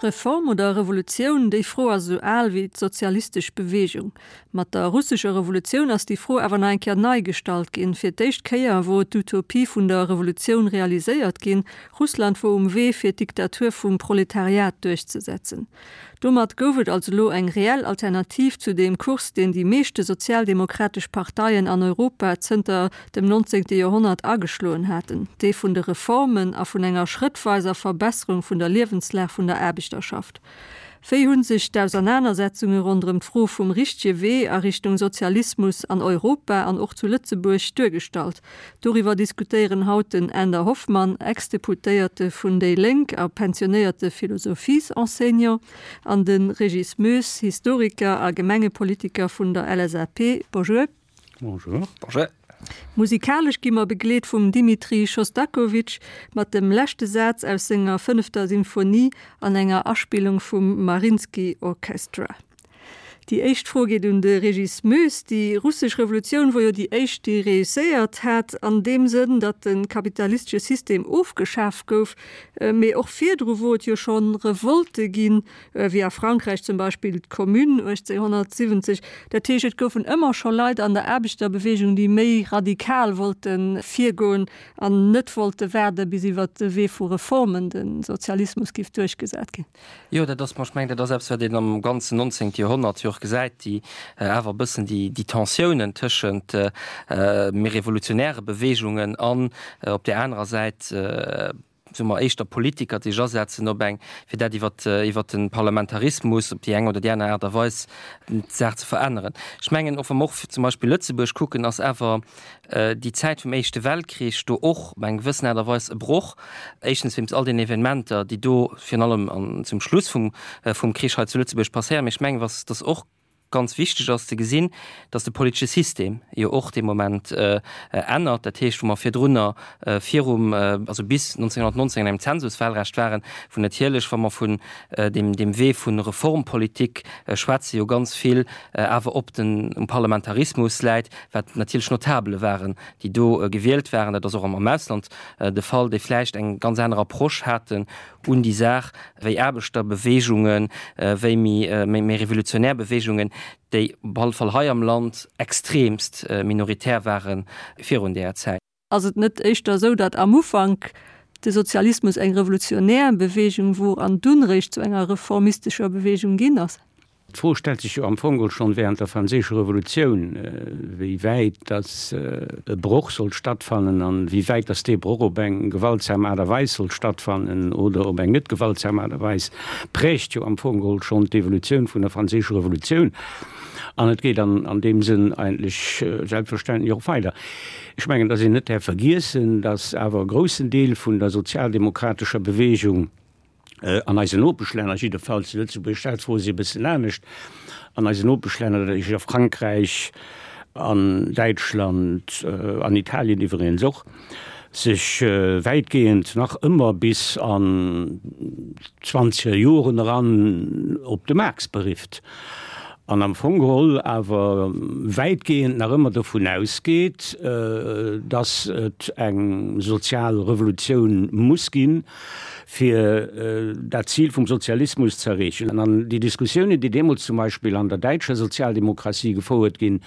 Reform oder Revolutioun, déi Fro ass esou al wéi d'sozialistesch Beweegung. Mat der russescher Revolutioun ass déi Fro awer nach eng Kéier nei gestallt ginn. Fir d'éischt Kéier wor d'Utopie vun der Revolutioun realiséiert ginn, Russland wor um Wee fir d'Diktatur vum Proletariat duerchzesetzen. Domat gouf et also elo eng reell Alternativ zu deem Kurs, deen déi meeschte sozialdemokratesch Parteien an Europa zënter dem nonzéngte Joerhonnert ageschloen haten, dee vun de Reformen a vun enger schrëttweiser Verbesserung vun der Liewenslag vun der Aarbechterschaft. Wéi hu sech d'Ausernanersetzunge ronderëm d'Fro vum richtege Wee a Richtung Sozialismus an Europa an och zu Lëtzebuerg duergestallt? Doriwwer diskutéieren haut den Änder Hoffmann, Ex-Deputéierte vun déi Lénk a pensionéierte Philosophiesenseignant, an de Régis Moes, Historiker a Gemengepolitiker vun der LSAP. Bonjour. Bonjour. Bonjour. Musikalesch gi mer begleet vum Dimitri Schostakowitsch mat dem leschte Saz aus senger fënnefter Symphonie an enger Aspillung vum Mariinsky Orchestra. Déi éischt Fro geet un de Régis Moes. Déi russesch Revolutioun wor jo déi éischt, déi reusséiert hat an deem Sënn, datt de kapitalistesche System ofgeschaf gouf. Mee och virdru wor et jo scho Revolte ginn, wéi a Frankräich zum Beispill d'Commune 1870. Dat heescht, et goufen ëmmer scho Leit an der Aarbechterbeweegung, déi méi radikal wollte virgoen an net wollte waarde bis iwwer de Wee vu Reformen de Sozialismus giff duerchgesat ginn. Jo, dat ass, ech mengen, dat ass eppes, wat een am ganzen nonzéngte Joerhonnert jo och gesäit, déi awer e bëssen déi, déi Tensiounen tëschent méi revolutionäre Beweegungen an op där anerer Säit, soe mer, éischter Politiker, déi sech asetzen op eng, fir dat iwwer, iwwer de Parlamentarismus op déi eng oder déi aner Aart a Weis d'Saach ze veränneren. Ech mengen, och wa mer och zum Beispill Lëtzebuerg kucken, ass awer déi Zäit vum Éischte Weltkrich do och op eng gewëssen Aart a Weis e Broch, éischtens wéinst all den Evenementer, déi do virun allem an zum Schluss vum vum Krich hei zu Lëtzebuerg passéieren. Mee ech mengen, was dass och ganz wichteg ass ze gesinn, dass de politesche System jo och dee Moment ännert. Dat heescht, wou mer virdrunner virum, also bis 1919 an engem Zensuswahlrecht waren, wou natierlech, wa mer vun deem deem Wee vu Reformpolitik schwätzen, jo ganz vill awer op den um Parlamentarismus läit, wat natierlech Notabele waren, déi do gewielt waren, dat ass och am Ausland de Fall, déi vläicht eng ganz aner Approche haten un déi Saach wéi Aarbechterbeweegungen, wéi méi revolutionär Beweegungen, déi op alle Fall hei am Land extremst minoritär ware virun deeër Zäit. Ass et net éischter esou, datt am Ufank de Sozialismus eng revolutionär Beweegung wor an dunn réischt zu enger reformistescher Beweegung ginn ass? D'Fro stellt sech jo am Fong geholl schonn während der Franséischer Revolutioun, wéi wäit datt e Broch sollt stattfannen an wéi wäit datt dee Broch op eng gewaltsam Aart a Weis sollt stattfannen oder op eng net gewaltsam Aart a Weis, prägt jo am Fong geholl schonn d'Evolutioun vun der Franséischer Revolutioun. An et geet an an deem Sënn eigentlech selbstverständlech och weider. Ech mengen, datt een net däerf vergiessen, datt awer e groussen Deel vun der sozialdemokratescher Bewegung an eisen Nopeschlänner, jiddefalls zu Lëtzebuerg stellt d'Fro sech e bëssen anescht, an eisen Nopeschlänner, dat heescht a Frankräich, an Däitschland, an Italien iwweregens och, sech wäitgehend nach ëmmer bis an d'zwanzeger Joren eran op de Marx berifft an am Fong geholl awer wäitgehend nach ëmmer dovun ausgeet, dass et eng sozial Revolutioun muss ginn, fir dat Zil vum Sozialismus ze erreechen. An déi Diskussiounen, déi deemools zum Beispill an der däitscher Sozialdemokratie gefouert ginn,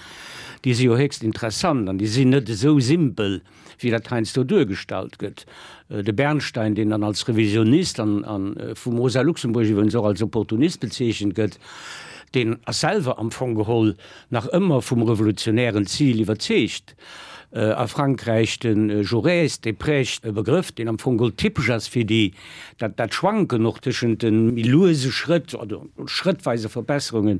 déi si jo héchst interessant an déi sinn net esou simpel, wéi dat heiansdo duergestallt gëtt. De Bernstein, deen dann als Revisionist an vum Rosa Luxemburg iwwregens och als Opportunist bezeechent gëtt, deen ass selwer am Fong geholl nach ëmmer vum revolutionären Zil iwwerzeegt. A Frankräich de Jaurès, dee prägt e Begrëff, deen am Fong geholl typesch ass fir déi, dat dat Schwanken och tëschent de méi luese Schrëtt oder schrëttweise Verbesserungen,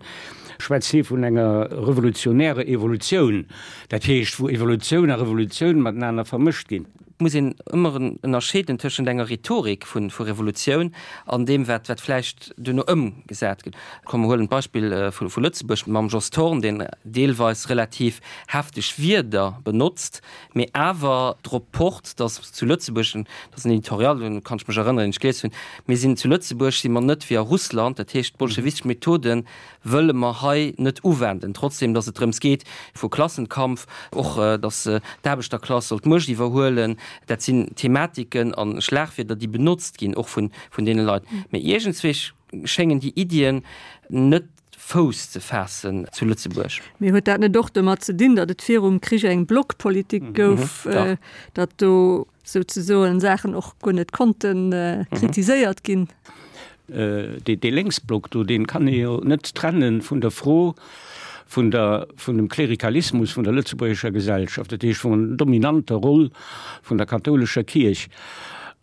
schwätzt hie vun enger revolutionärer Evolutioun, dat heescht wou Evolutioun a Revolutioun matenaner vermëscht ginn. Et muss een ëmmer ënnerscheeden tëschent enger Rhetorik vu Revolutioun an deem, wat vläicht duerno ëmgesat gëtt. Komm, mer huelen d'Beispill vu Lëtzebuerg mam Jos Thorn, deen deelweis relativ hefteg Wierder benotzt, mee awer drop pocht, datt zu Lëtzebuerg, dat ass en Editorial, un kann ech mech erënneren, deen ech gelies hunn, mir sinn zu Lëtzebuerg si mer net wéi a Russland, dat heescht d'bolschewistesch Methoden wëlle mer hei net uwenden, trotzdem datt et drëms geet vu Klassenkampf, och datt d'Aarbechterklass soll d'Muecht iwwerhuelen. Dat sinn Thematiken a Schlagwierder, déi benotzt ginn, och vun deene Leit. Mee iergendswéi. schéngen déi Iddien net Fouss ze faassen zu Lëtzebuerg. Mee huet dat net och domat ze dinn, datt et virum Krich eng Blockpolitik gouf, datt do souzesoen Saachen och guer net konnte kritiséiert ginn? Dee Lénksblock do, dee kann ee jo net trenne vun der Fro vun der, vun dem Klerikalismus vun der lëtzebuergescher Gesellschaft, dat heescht vun der dominanter Roll vun der kathoulescher Kierch.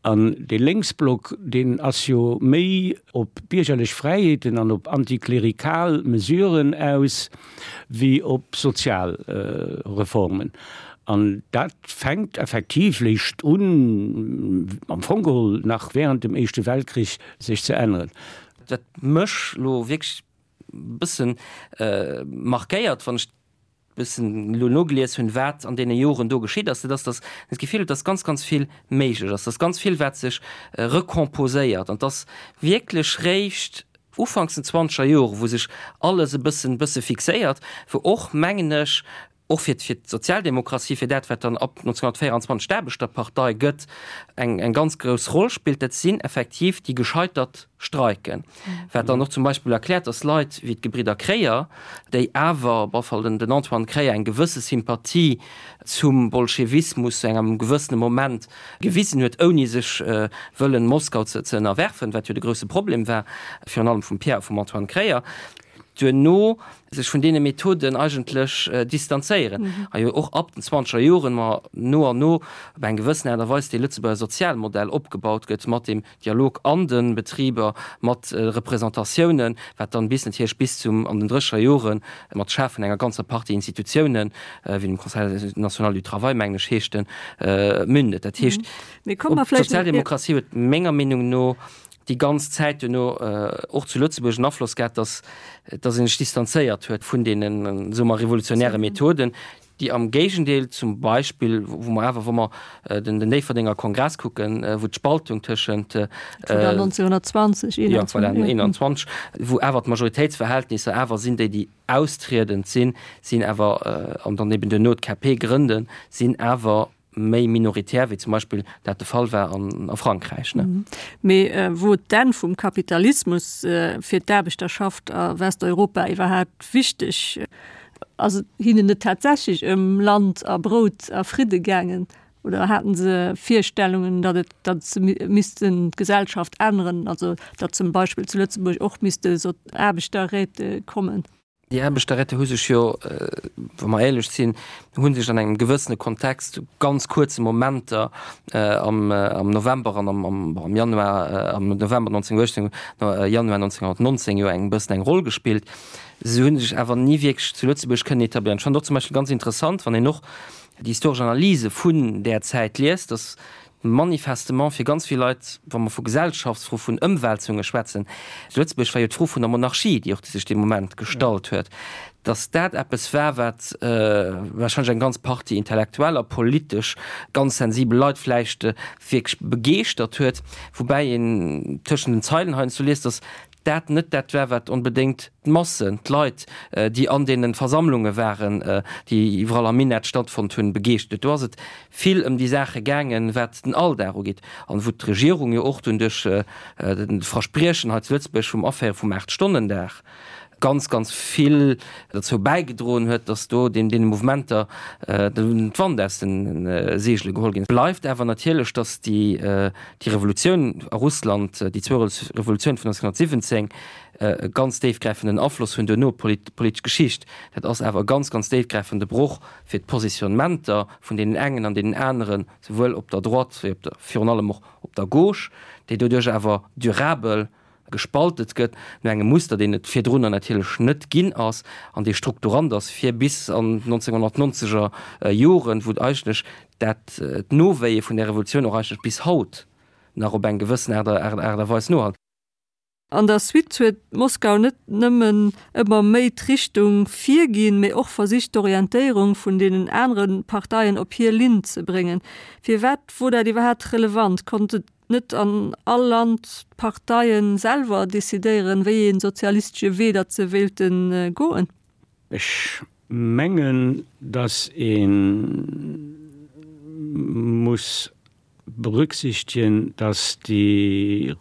An dee Lénksblock, deen ass jo méi op biergerlech Fräiheeten an op antiklerikal Mesuren aus wéi op sozial Reformen. An dat fänkt effektiv léischt un, am Fong geholl nach während dem Éischte Weltkrich, sech ze änneren. Wat mech elo wierklech e bësse markéiert, wann ech bëssen elo nogelies hunn, wat an deene Joren do geschitt ass, dat ass, datt een d'Gefill huet, datt ganz, ganz vill méiglech ass, datt ganz vill, wat sech recomposéiert an datt wierklech réischt ufanks den zwanzeger Jore, wou sech alles e bëssen, bësse fixéiert, wou och, mengen ech, och fir fir d'Sozialdemokratie, fir dat, wat dann ab 1924 d'Aarbechterpartei gëtt, eng, eng ganz grouss Roll spillt, dat sinn effektiv déi gescheitert Streiken. Wat dann och zum Beispill erkläert, dass Leit wéi d'Gebridder Kreyer, déi awer, op alle Fall den Antoine Kreyer, eng gewësse Sympathie zum Bolschewismus zu engem gewëssene Moment gewisen huet, ouni sech wëllen Moskau ze ënnerwerfen, wat jo de grousse Problem war, virun allem vum Pierre a vum Antoine Kreyer, duerno sech vun deene Methoden eigentlech distanzéieren a jo och ab den zwanzeger Joren ma no an no op eng gewëssen Aart a Weis dee Lëtzebuerger Sozialmodell opgebaut gëtt mat deem Dialog an de Betriber, mat Representatiounen, wat dann bis natierlech bis zum an den drécheger Jore mat Schafen enger ganzer Partie Institutiounen, wéi dem Conseil national du travail, mengen ech heescht en, mündet. Dat heescht, d'Sozialdemokratie huet menger Meenung no déi ganz Zäit duerno och zu Lëtzebuerg en Afloss gehat, dass dass ee sech distanzéiert huet vun deenen, soe mer, revolutionäre Methoden, déi am Géigendeel zum Beispill, wou mer awer, wa mer den Déifferdenger Kongress kucken, wou d'Spaltung tëschent. Dat war 1920, 21. Jo, voilà, 21, wou awer d'Majoritéitsverhältnisser awer sinn, déi, déi austriedend sinn, sinn awer, an dann eben duerno d'KP grënden, sinn awer méi minoritär, wéi zum Beispill dat de Fall war an a Frankräich. Mee wor d'Enn vum Kapitalismus fir d'Aarbechterschaft a Westeuropa iwwerhaapt wichteg? Ass et hinnen net tatsächlech ëm Land a Brout a Fridde gaangen? Oder haten se Virstellungen, datt et, datt se missten d'Gesellschaft änneren, also datt zum Beispill zu Lëtzebuerg och misste Aarbechterräte kommen? Déi Aarbechterräte hu sech jo, wa mer éierlech sinn, hu sech an engem gewëssene Kontext, zu ganz kuerze Momenter am November an am Januar, am November 1918, Januar 1919 jo eng bëssen eng Roll gespillt. Se hu sech awer ni wierklech zu Lëtzebuerg kënnen etabléieren. Ech fannen och zum Beispill ganz interessant, wann een och déi historesch Analyse vun där Zäit liest, datt Manifestement fir ganz vill Leit, wa mer vu Gesellschaftsfro, vun Ëmwälzunge schwätzen, zu Lëtzebuerg war jo d'Fro vun der Monarchie, déi och sech dee Moment gestallt huet, datt dat eppes war, wat warscheinlech eng ganz Partie Intellektueller, politesch ganz sensibel Leit vläicht wierklech begeeschtert huet, woubäi een tëschent den Zeilen heiansdo liest, datt dat net dat war, wat onbedéngt d'Massen, d'Leit, déi an deene Versammlunge waren, déi iwwerall am Minett stattfonnt hunn, begeeschtert huet. Do ass et vill ëm déi Saache gaangen, wat den Alldag ugeet an wou d'Regierung jo och dunn duerch de Verspriechen hei zu Lëtzebuerg vum Aféiere vum Aacht-Stonnen-Dag ganz, ganz vill derzou bäigedroen huet, dass do deene Mouvementer d'Wand aus de Seegele geholl ginn. Bleift awer natierlech, dass déi Déi Revolutioun a Russland, déi zwou Revolutioun vun 1917, e ganz déifgräifenden Afloss hunn duerno op d'politesch Geschicht. Dat ass awer e ganz, ganz déifgräifende Broch fir d'Positionnementer vun deenen engen an deenen aneren, souwuel op der Droite wéi op der, virun allem och op der Gauche, déi doduerch awer durabel gespaltet gëtt no engem Muster, deen et virdrunner natierlech net ginn ass an dee strukturant ass fir bis an d'nonzénhunnertnonzeger Joren, wou eigentlech dat d'Nowéie vun där Revolutioun och eigentlech bis haut nach op eng gewëssen Aart a Weis nohalt. An der Suite huet Moskau net nëmmen ëmmer méi d'Richtung virginn, mee och versicht d'Orientéierung vun deenen anere Parteien op hir Linn ze bréngen. Firwat wor dat iwwerhaapt relevant? Konnt et net an all Land d'Parteien selwer decidéieren, wéi ee sozialistesche Wee datt se wéilte goen? Ech mengen, datt ee muss berücksichtegen, datt déi.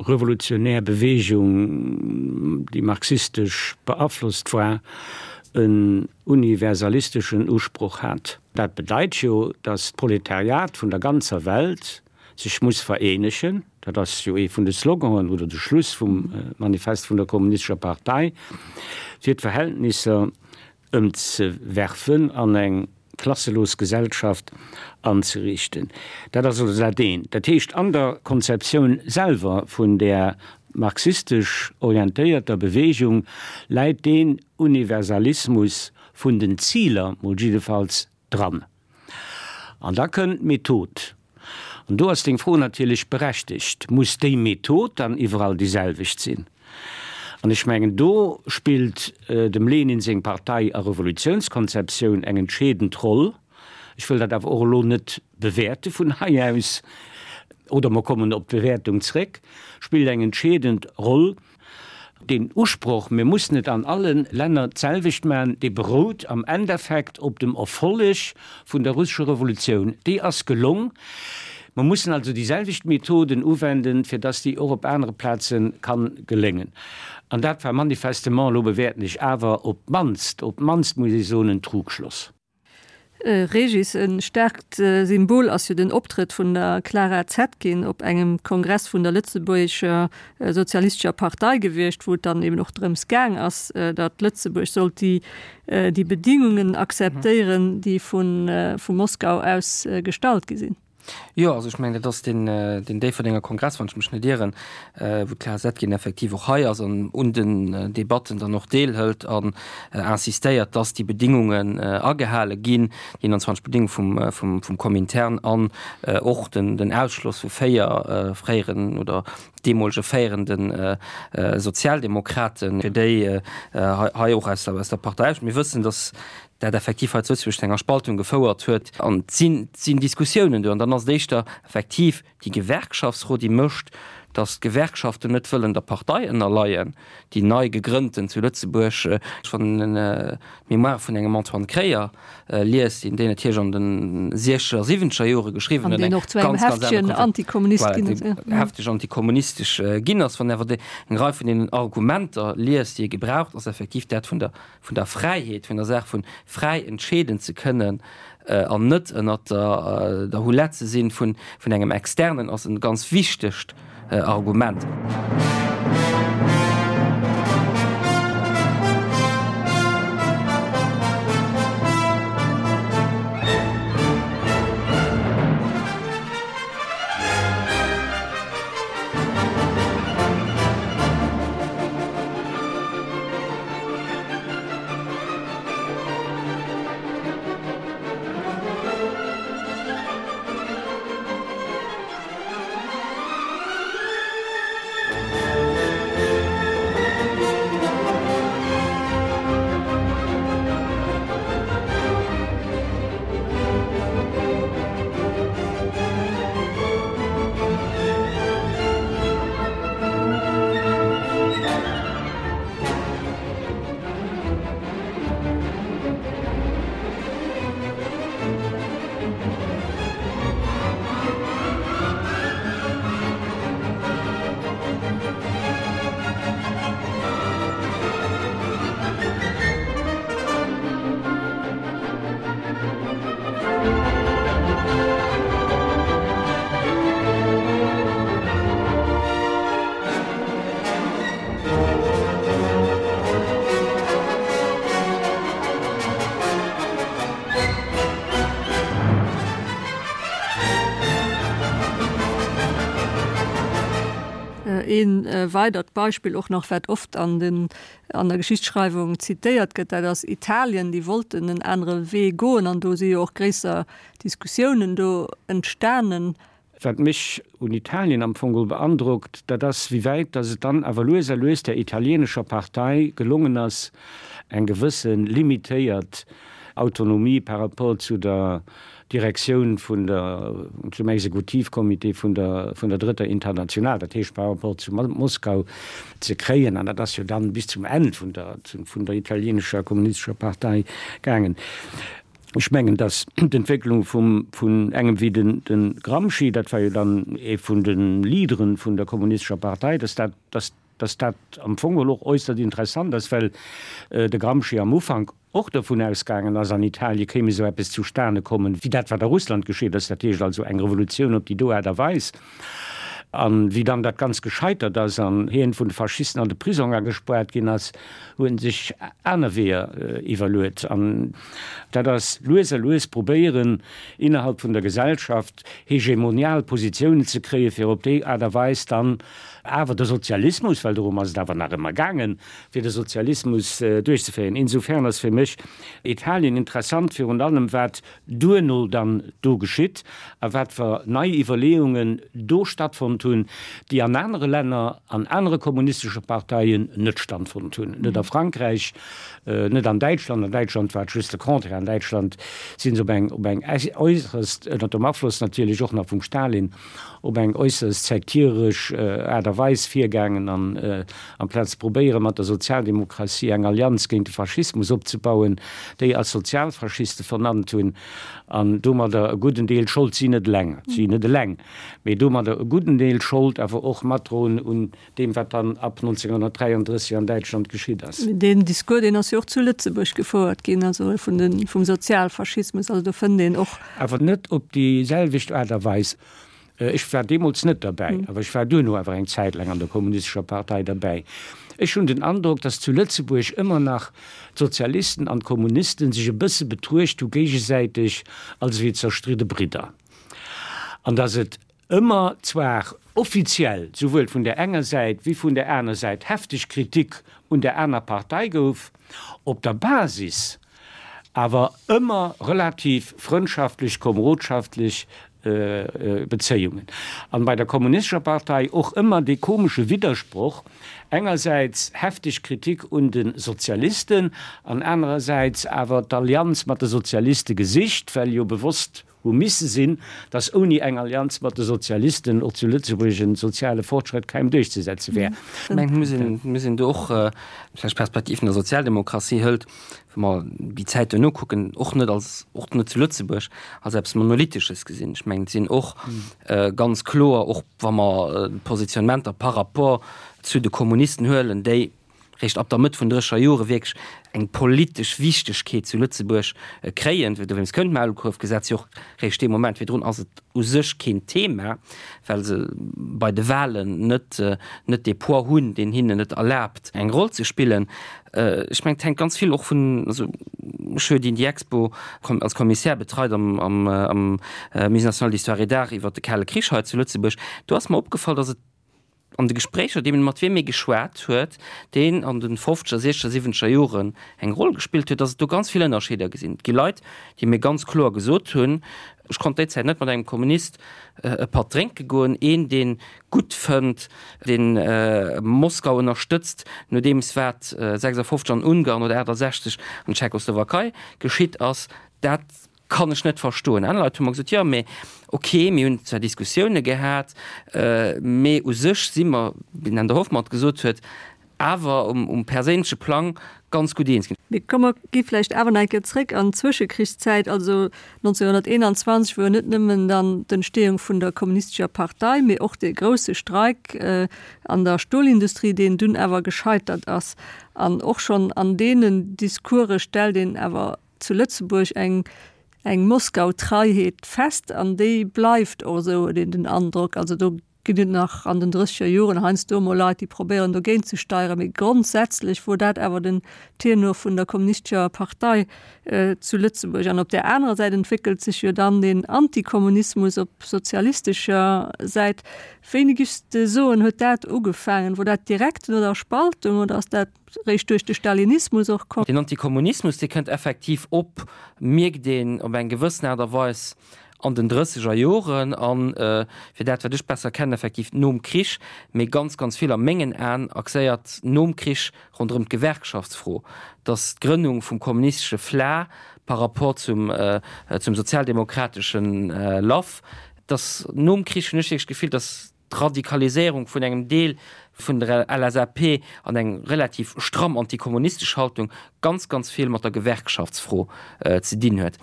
revolutionär Beweegung, déi marxistesch beaflosst war, en universalisteschen Usproch hat. Dat bedeit jo, datt d'Proletariat vun der ganzer Welt sech muss vereenegen, dat ass jo ee vun de Sloganen oder de Schluss vum Manifest vun der Kommunistescher Partei, fir d'Verhältnisser ëmzewerfen an eng klasselos Gesellschaft anzeriichten. Dat ass also dat eent. Dat heescht, an der Konzeptioun selwer vun där marxistesch orientéierter Bewegung läit deen Universalismus vun den Ziler mol jiddefalls dran. An da kënnt d'Method. An do ass deng Fro natierlech berechtegt, Muss déi Method dann iwwerall déi selwecht sinn? An ech mengen, do spillt dem Lenin seng Partei a Revolutiounskonzeptioun eng entscheedend Roll. Ech wëll dat awer och elo net bewäerte vun hei aus, oder mer kommen op d'Bewäertung zréck, spillt eng entscheedend Roll. Deen Usproch, mir mussen et an alle Länner d'selwecht maachen, dee berout am Endeffekt op dem Erfolleg vun der russescher Revolutioun. Déi ass gelong. Mer mussen also déi selwecht Methoden uwenden, fir dass déi och op anere Plaze kann geléngen. An dat war manifestement, elo bewäerten ech awer, op d'mannst, op d'mannst muss ech soen, en Trugschloss. Régis, E staarkt Symbol ass jo den Optrëtt vun der Clara Zetkin op engem Kongress vun der lëtzebuergescher sozialistescher Partei gewiescht, wou et dann eben och drëms gaang ass, datt Lëtzebuerg sollt déi déi Bedingungen akzeptéieren, déi vu vu Moskau aus gestallt gi sinn. Jo, also ech mengen, dat ass deen, deen Déifferdenger Kongress, wann ech mech net ieren, wou d'Clara Zetkin effektiv och hei ass an un den Debatten dann och deelhëlt an insistéiert, dass déi Bedingungen agehale ginn, déi 21 Bedingunge vum, vum, vum Komintern an och den, den Ausschloss vu 4 fréieren oder deemolege féierende Sozialdemokraten, fir déi hei och aus der, aus der Partei. Mir wëssen, dass dat effektiv hei zu Lëtzebuerg zu enger Spaltung gefouert huet an et sinn, et sinn Diskussiounen do an dann ass et éischter effektiv déi Gewerkschaftsfro, déi mécht, datt d'Gewerkschaften net wëllen der Partei ënnerleien, déi nei gegrënnten zu Lëtzebuerg. Wann een d'Mémoire vun engem Antoine Kreyer liest, deen déi natierlech an de siechzeger, siwwenzeger Jore geschriwwen huet, eng ganz, ganz aner Konzept, voilà, deen hefteg antikommunistesch ginn ass, wann een awer eng Rei vun deenen Argumenter liest, déi e gebraucht, ass effektiv dat vun der vun der Fräiheet, vun der Saach vun fräi entscheeden ze kënnen an net ënnert der Houlette ze sinn vun engem Externen, ass e ganz wichtegt Argument. Ee weidert Beispill och nach, wat oft an den, an der Geschichtsschreiwung zitéiert gëtt, dat ass Italien. Déi wollten en anere Wee goen an do si jo och gréisser Diskussiounen do entstanen. Wat mech un Italien am Fong beandrockt, dat ass, wéi wäit datt et dann awer lues a lues där italienescher Partei gelongen ass, eng gewësse limitéiert Autonomie par rapport zu der Direktioun vun der, zum Exekutivcomité vun der, vun der Drëtter Internationale, dat heescht par rapport zu Moskau, ze kréien. An dat ass jo dann bis zum Enn vun der, vun der italienescher kommunistescher Partei gaangen. Ech mengen, datt d'Entwécklung vum, vun engem wéi den, de Gramsci, dat war jo dann ee vun de Leadere vun der Kommunistescher Partei, datt dat, datt, datt dat am Fong geholl och äusserst interessant ass, well de Gramsci am Ufank och dovun ausgaangen ass, an Italie kéim esou eppes zustane kommen, wéi dat, wat a Russland geschitt ass, dat heescht also eng Revolutioun op déi do Aart a Weis. A wéi dann dat Ganzt gescheitert ass an hien vun de Faschisten an de Prisong agespaart ginn ass, huet en sech aner Weeër iwwerluet. An dat ass lues a lues probéieren, innerhalb vun der Gesellschaft hegemonial Positiounen ze kréien, fir op déi Aart a Weis dann awer de Sozialismus, well dorëm ass et awer nach ëmmer gaangen, fir de Sozialismus duerchzeféieren. Insofern ass fir mech Italien interessant, virun allem wat duerno dann do geschitt a wat fer nei Iwwerleeungen do stattfonnt hunn, déi an anere Länner, an anere kommunistesche Parteien net standfonnt hunn, net a Frankräich, net an Däitschland. An Däitschland war et just de Contraire. An Däitschland si se op eng, op eng äusserst, ënner dem Afloss natierlech och nach vum Stalin, op eng äusserst sektieresch Aart a Weis virgaangen an amplaz ze probéiere mat der Sozialdemokratie eng Allianz géint de Faschismus opzebauen, déi als Sozialfaschiste vernannt hunn an domadder e gudden Deel Schold, si net eleng, si net eleng, mee domadder e gudden Deel Schold awer och matdroen un deem wat dann ab 1933 an Däitschland geschitt ass. Deen Discours, deen ass jo och zu Lëtzebuerg gefouert ginn, also vun de, vum Sozialfaschismus, also do fënnt een och. Awer net op déi selwecht Aart a Weis. Ech war deemools net derbäi, awer ech war duerno awer eng Zäit laang an der Kommunistescher Partei derbäi. Ech hunn den Androck, datt zu Lëtzebuerg ëmmer nach d'Sozialisten an d'Kommunisten sech e bësse betruecht hu géigesäiteg als ewéi zerstridde Bridder an datt et ëmmer zwar offiziell souwuel vun där enger Säit wéi vun där aner Säit hefteg Kritik un där aner Partei gouf, op der Basis awer ëmmer relativ frëndschaftlech, komerodschaftlech Bezéiungen. An bei der Kommunistescher Partei och ëmmer dee komesche Widdersproch, engersäits hefteg Kritik un de Sozialisten an anerersäits awer d'Allianz mat de Sozialiste gesicht, well jo bewosst hu misse sinn, datt ouni eng Allianz mat de Sozialisten och zu Lëtzebuerg en soziale Fortschrëtt kaum duerchzesetze wär. Ech mengen, et muss een do och vläicht d'Perspektiv vun der Sozialdemokratie hëlt, wa mer déi Zäit duerno kucken, och net als, och net zu Lëtzebuerg, als eppes Monolithesches gesinn. Ech mengen, et sinn och ganz kloer, och wa mer d'Positionnementer par rapport zu de Kommunisten huelen, déi, réischt ab der Mëtt vun drécher Jore wierklech eng politesch Wichtegkeet zu Lëtzebuerg kréien. Dowéinst kënnt d'Maulkuerfgesetz jo och réischt dee Moment. Virdrun ass et u sech keen Thema, well se bei de Wahlen net net dee Poids hunn, deen hinnen et erlaabt, eng Roll ze spillen. Ech mengen, et hänkt ganz vill och vun, also ech hu jo déi Expo als Commissaire betreit am am am Musée national d'histoire et d'art iwwert de Kale Krich hei zu Lëtzebuerg. Do ass mer opgefall, datt et An de Gespréicher, deem mat wiem ee geschwat huet, deen an de fofzeger, siechzeger, siwwenzeger Joren eng Roll gespillt huet, datt et do ganz vill Ënnerscheeder gesinn. Et gi Leit, déi mir ganz kloer gesot hunn, ech konnt déi Zäit net mat engem Kommunist e Patt drénke goen, een, dee gutt fënnt, deen Moskau ënnerstëtzt, nodeems wat 56 an Ungarn oder 68 an Tschechoslowakei geschitt ass, dat Kann ech net verstoen. Aner Leit hu mer gesot, jo, mee ok, mir hunn zwar Diskussioune gehat, mee u sech si mer, wéi den Änder Hoffmann et gesot huet, awer um perséinleche Plang ganz gutt eens ginn. Mee komm, mer gi vläicht awer nach eng Kéier zréck an d'Zwëschekrichszäit, also 1921, wou jo net nëmmen dann d'Entstehung vun der Kommunistescher Partei, mee och dee grousse Streik an der Stolindustrie, deen dunn awer gescheitert ass. An och schonn an deenen Discourse stellt een awer zu Lëtzebuerg eng eng Moskau-Treiheet fest an déi bleift och esou, huet een den Androck. Also do ginn et nach an den drësseger Joren heiansdo emol Leit, déi probéieren dogéint ze steieren, mee grondsätzlech wor dat awer den Tenor vun der kommunistescher Partei zu Lëtzebuerg. An op där anerer Säit entwéckelt sech jo dann den Antikommunismus op sozialistescher Säit. Wéini giffs de soen, huet dat ugefaangen? Wor dat direkt no der Spaltung oder ass dat réischt duerch de Stalinismus och komm. Den Antikommunismus, dee kënnt effektiv op, mierkt een op eng gewëssen Aart a Weis an den drësseger Joren an, fir dat wat ech besser kennen, effektiv nom Krich, mee ganz, ganz vill a mengen Aen axéiert nom Krich ronderëm d'Gewerkschaftsfro, dass d'Grënnung vum kommunistesche FLA par rapport zum, zum sozialdemokrateschen LAF, dass nom Krich hunn ech wierklech d'Gefill, dass. d'Radikaliséierung vun engem Deel vun der LSAP an eng relativ stramm antikommunistesch Haltung ganz, ganz vill mat der Gewerkschaftsfro ze dinn huet.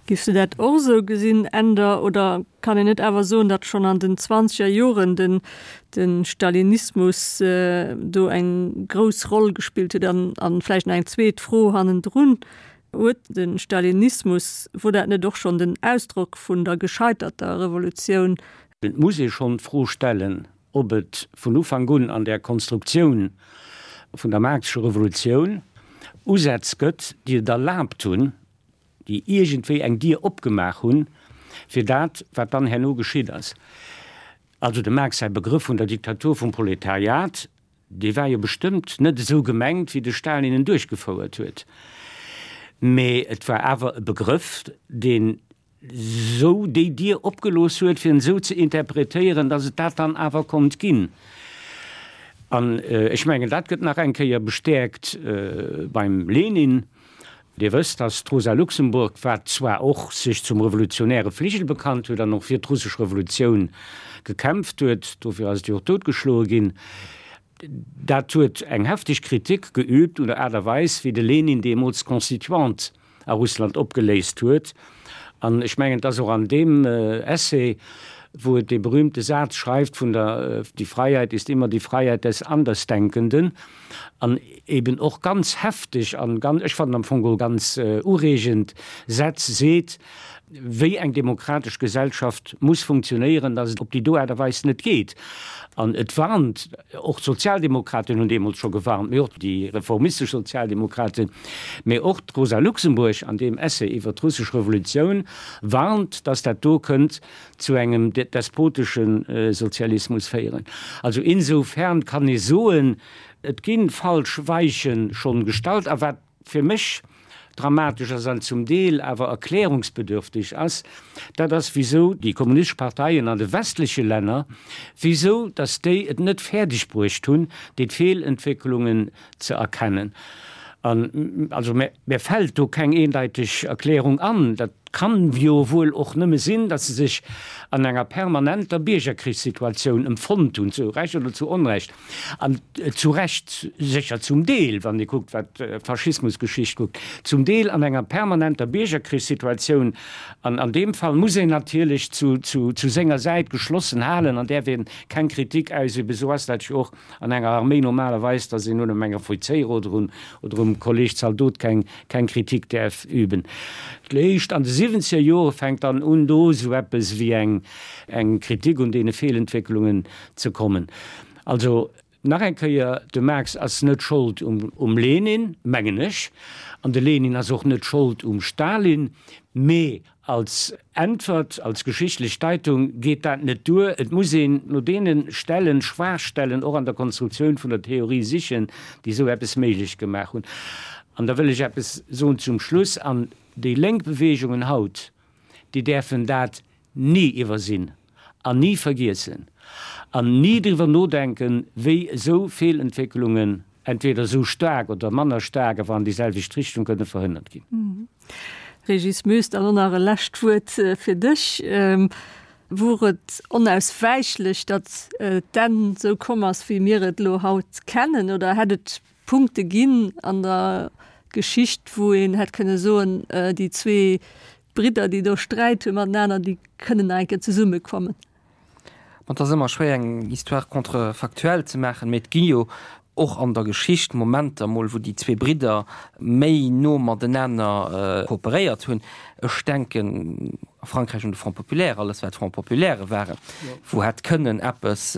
Giffs du dat och esou gesinn, Änder, oder kann een net awer soen, datt schonn an den zwanzeger Joren den de Stalinismus do eng grouss Roll gespillt huet? An an vläicht nach eng zweet Fro hannendrun, Huet de Stalinismus, wor dat net och schonn den Ausdrock vun der gescheiterter Revolutioun? Et muss ee schonn d'Fro stellen, ob et vun Ufank un an där Konstruktioun vun der Marx'scher Revolutioun Usätz gëtt, déi et erlaabt hunn, déi iergendwéi eng Dier opgemaach hunn, fir dat, wat dann herno geschitt ass. Also dem Marx säi Begrëff vun der Diktatur vum Proletariat, dee war jo bestëmmt net esou gemengt, wéi de Stalin en duerchgefouert huet, mee et war awer e Begrëff, deen esou déi Dier opgelooss huet, fir en esou ze interpretéieren, datt et dat dann awer konnt ginn. An ech mengen, dat gëtt nach eng Kéier bestäerkt beim Lenin. Dir wësst, datt d'Rosa Luxemburg, wat zwar och sech zum revolutionäre Fligel bekannt huet an och fir d'russesch Revolutioun gekämpft huet, dofir ass et jo och doutgeschloe ginn, dat huet eng hefteg Kritik geübt un der Aart a Weis, wéi de Lenin deemools d'Constituante a Russland opgeléist huet. An ech mengen, et ass och an deem Essay, wou et dee berühmte Saz schreift vun der Die Freiheit ist immer die Freiheit des Andersdenkenden, an eben och ganz hefteg an ganz, ech fannen am Fong geholl ganz ureegend Sätz seet, wéi eng demokratesch Gesellschaft muss funktionéieren, dass et op déi do Aart a Weis net geet. An et warnt, och d'Sozialdemokraten hunn deemools scho gewarnt, mee och déi reformistesch Sozialdemokraten, mee och d'Rosa Luxemburg an deem Essay iwwert d'russesch Revolutioun warnt, dass dat do kënnt zu engem despotesche Sozialismus féieren. Also insofern kann ee soen, et gi falsch Weiche schonn gestallt. A wat fir mech dramatesch ass an zum Deel awer erklärungsbedürftig ass, dat ass, wisou déi kommunistesch Parteien an de westleche Länner, wisou datt déi et net fäerdeg bruecht hunn, déi Feelentwécklungen ze erkennen. An also mär fält do keng eendeiteg Erklärung an. Dat kann jo wuel och nëmme sinn, datt se sech an enger permanenter Biergerkrichssituatioun emfonnt hunn, zu Recht oder zu Onrecht, an zu Recht sécher zum Deel, wann ee kuckt wat d'Faschismusgeschicht kuckt, zum Deel an enger permanenter Biergerkrichssituatioun. An an deem Fall muss een natierlech zu senger Säit geschlossen halen an däerf ee keng Kritik ausüben. Esou ass dat jo och An enger Arméi normalerweis, dass een un engem Offizéier oder un oder um Kolleg Zaldot keng keng Kritik däerf üben. Léischt an de siwwenzeger Jore fänkt dann un do esou eppes wéi eng eng Kritik un deene Feelentwécklungen ze kommen. Also nach eng Kéier, de Marx ass net Schold um um Lenin, mengen ech, an de Lenin ass och net Schold um Stalin, mee Als Äntwert, als geschichtlech Deitung geet dat net duer. Et muss een no deene Stellen, Schwaachstellen och an der Konstruktioun vun der Theorie sichen, déi esou eppes méiglech gemaach hunn. An da wëll ech eppes soen zum Schluss, An déi lénk Beweegungen haut, déi däerfen dat ni iwwersinn an ni vergiessen an ni driwwer nodenken, wéi esou Feelentwécklungen entweder esou staark oder manner staark, awer an déi selwecht Richtung kënne verhënnert ginn. Régis Moes, dann och nach e lescht Wuert fir dech. Wor et onauswäichlech, datt d'Enn esou komm ass, wéi mir et elo haut kennen, oder hätt et Punkte ginn an der Geschicht, wou een hätt kënne soen, déi zwee Bridder, déi do Sträit hu matenaner, déi kënnen nach eng Kéier zesummekommen? Bon, et ass ëmmer schwéier eng Histoire contrefactuelle ze maachen, mee et gi jo och an der Geschicht Momenter mol, wou déi zwee Bridder méi no matenaner kooperéiert hunn. Ech denken a Frankräich un de Front populaire, alles wat Front populairë waren, wou hätt kënnen eppes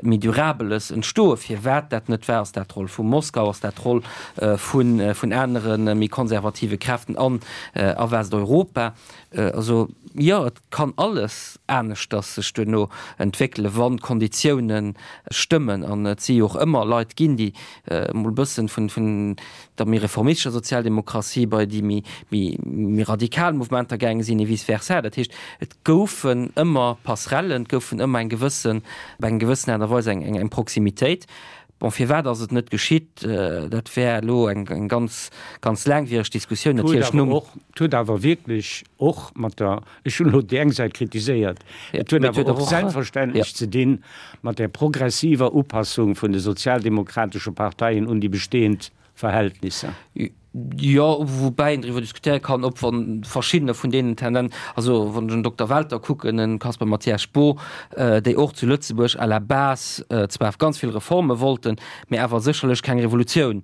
méi Durabeles entstoen. Firwat dat net war, ass dat d'Roll vu Moskau, ass dat d'Roll vun anere méi konservative Kräften an a Westeuropa? Also jo, et kann alles aneschters sech duerno entwéckelen, wann d'Konditioune stëmmen. An et si jo och ëmmer Leit ginn, déi emol e bëssen vun der méi reformistescher Sozialdemokratie bei déi méi radikal Mouvementer gaange sinn, et vice versa. Dat heescht, et goufen ëmmer Passerellen, et goufen ëmmer eng gewëssen, op eng gewëssen Aart a Weis eng Proximitéit. Bon, firwat ass et net geschitt? Dat wär elo eng ganz, ganz laangwiereg Diskussioun natierlech nom. Et huet awer wierklech och mat der, ech hunn elo déi eng Säit kritiséiert, et huet awer och selbstverständlech ze dinn mat där progressiver Upassung vun de sozialdemokratesche Parteien un déi bestehend Verhältnisser. Jo, woubäi een driwwer diskutéiere kann, ob wann verschiddener vun deenen Tenden, also wann ech en Dokter Welter kucken, en Caspar Mathias Spoo, déi och zu Lëtzebuerg à la base zwar ganz vill Reforme wollten, mä awer sécherlech keng Revolutioun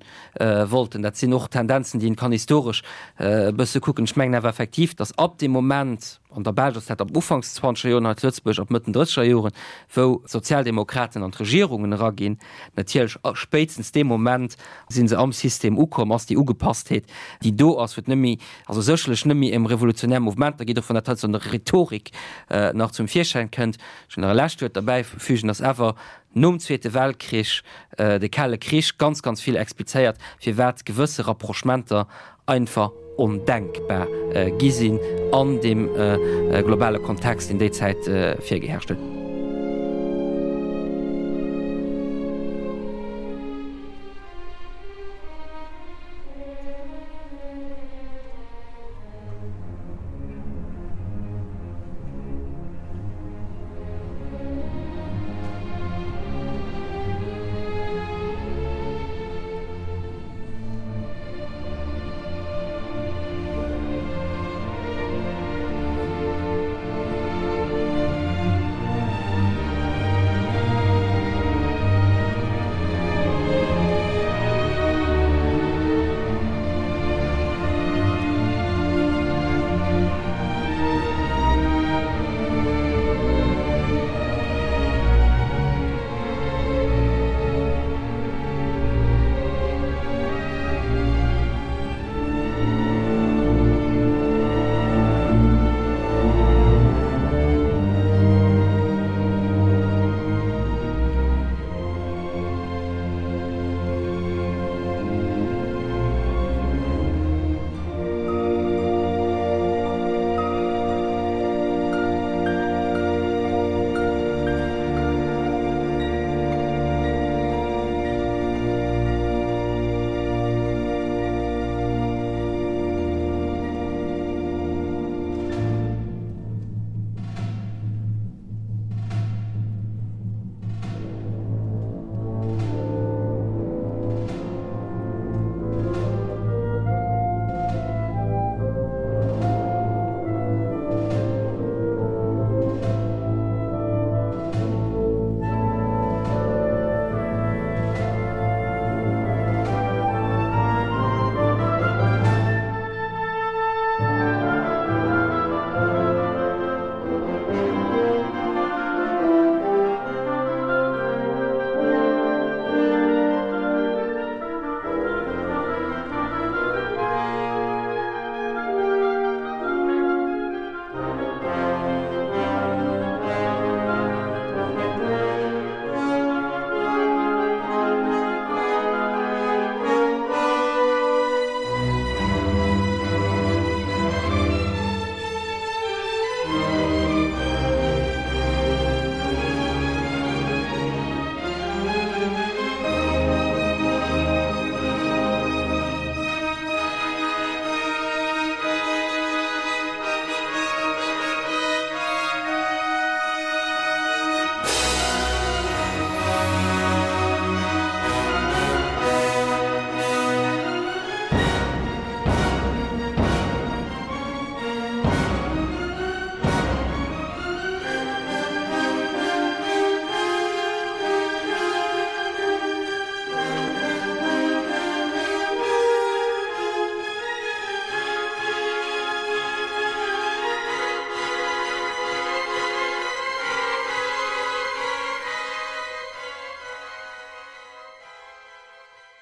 wollten. Dat sinn och Tendenzen, déi een kann historesch e bësse kucken. Ech mengen awer effektiv, datt ab deem Moment, An der Belsch ass dat ab Ufanks zwanzeger Joren, hei zu Lëtzebuerg ab Mëtten drësseger Joren, wou d'Sozialdemokraten an d'Regierungen eraginn. Natierlech spéitstens dee Moment si se am System ukomm, ass déi Ugepasstheet, déi do ass, wou et net méi, also sécherlech net méi ëm revolutionär Mouvementer geet, och wann dat heiansdo an der Rhetorik nach zum Virschäin kënnt. Ech wëll nach e lescht Wuert derbäifügen, dass awer nom Zweete Weltkrich de Kale Krich ganz, ganz vill explizéiert, firwat gewësse Rapprochementer einfach ondenkbar gi sinn an deem globale Kontext, deen déi Zäit virgeherrscht huet.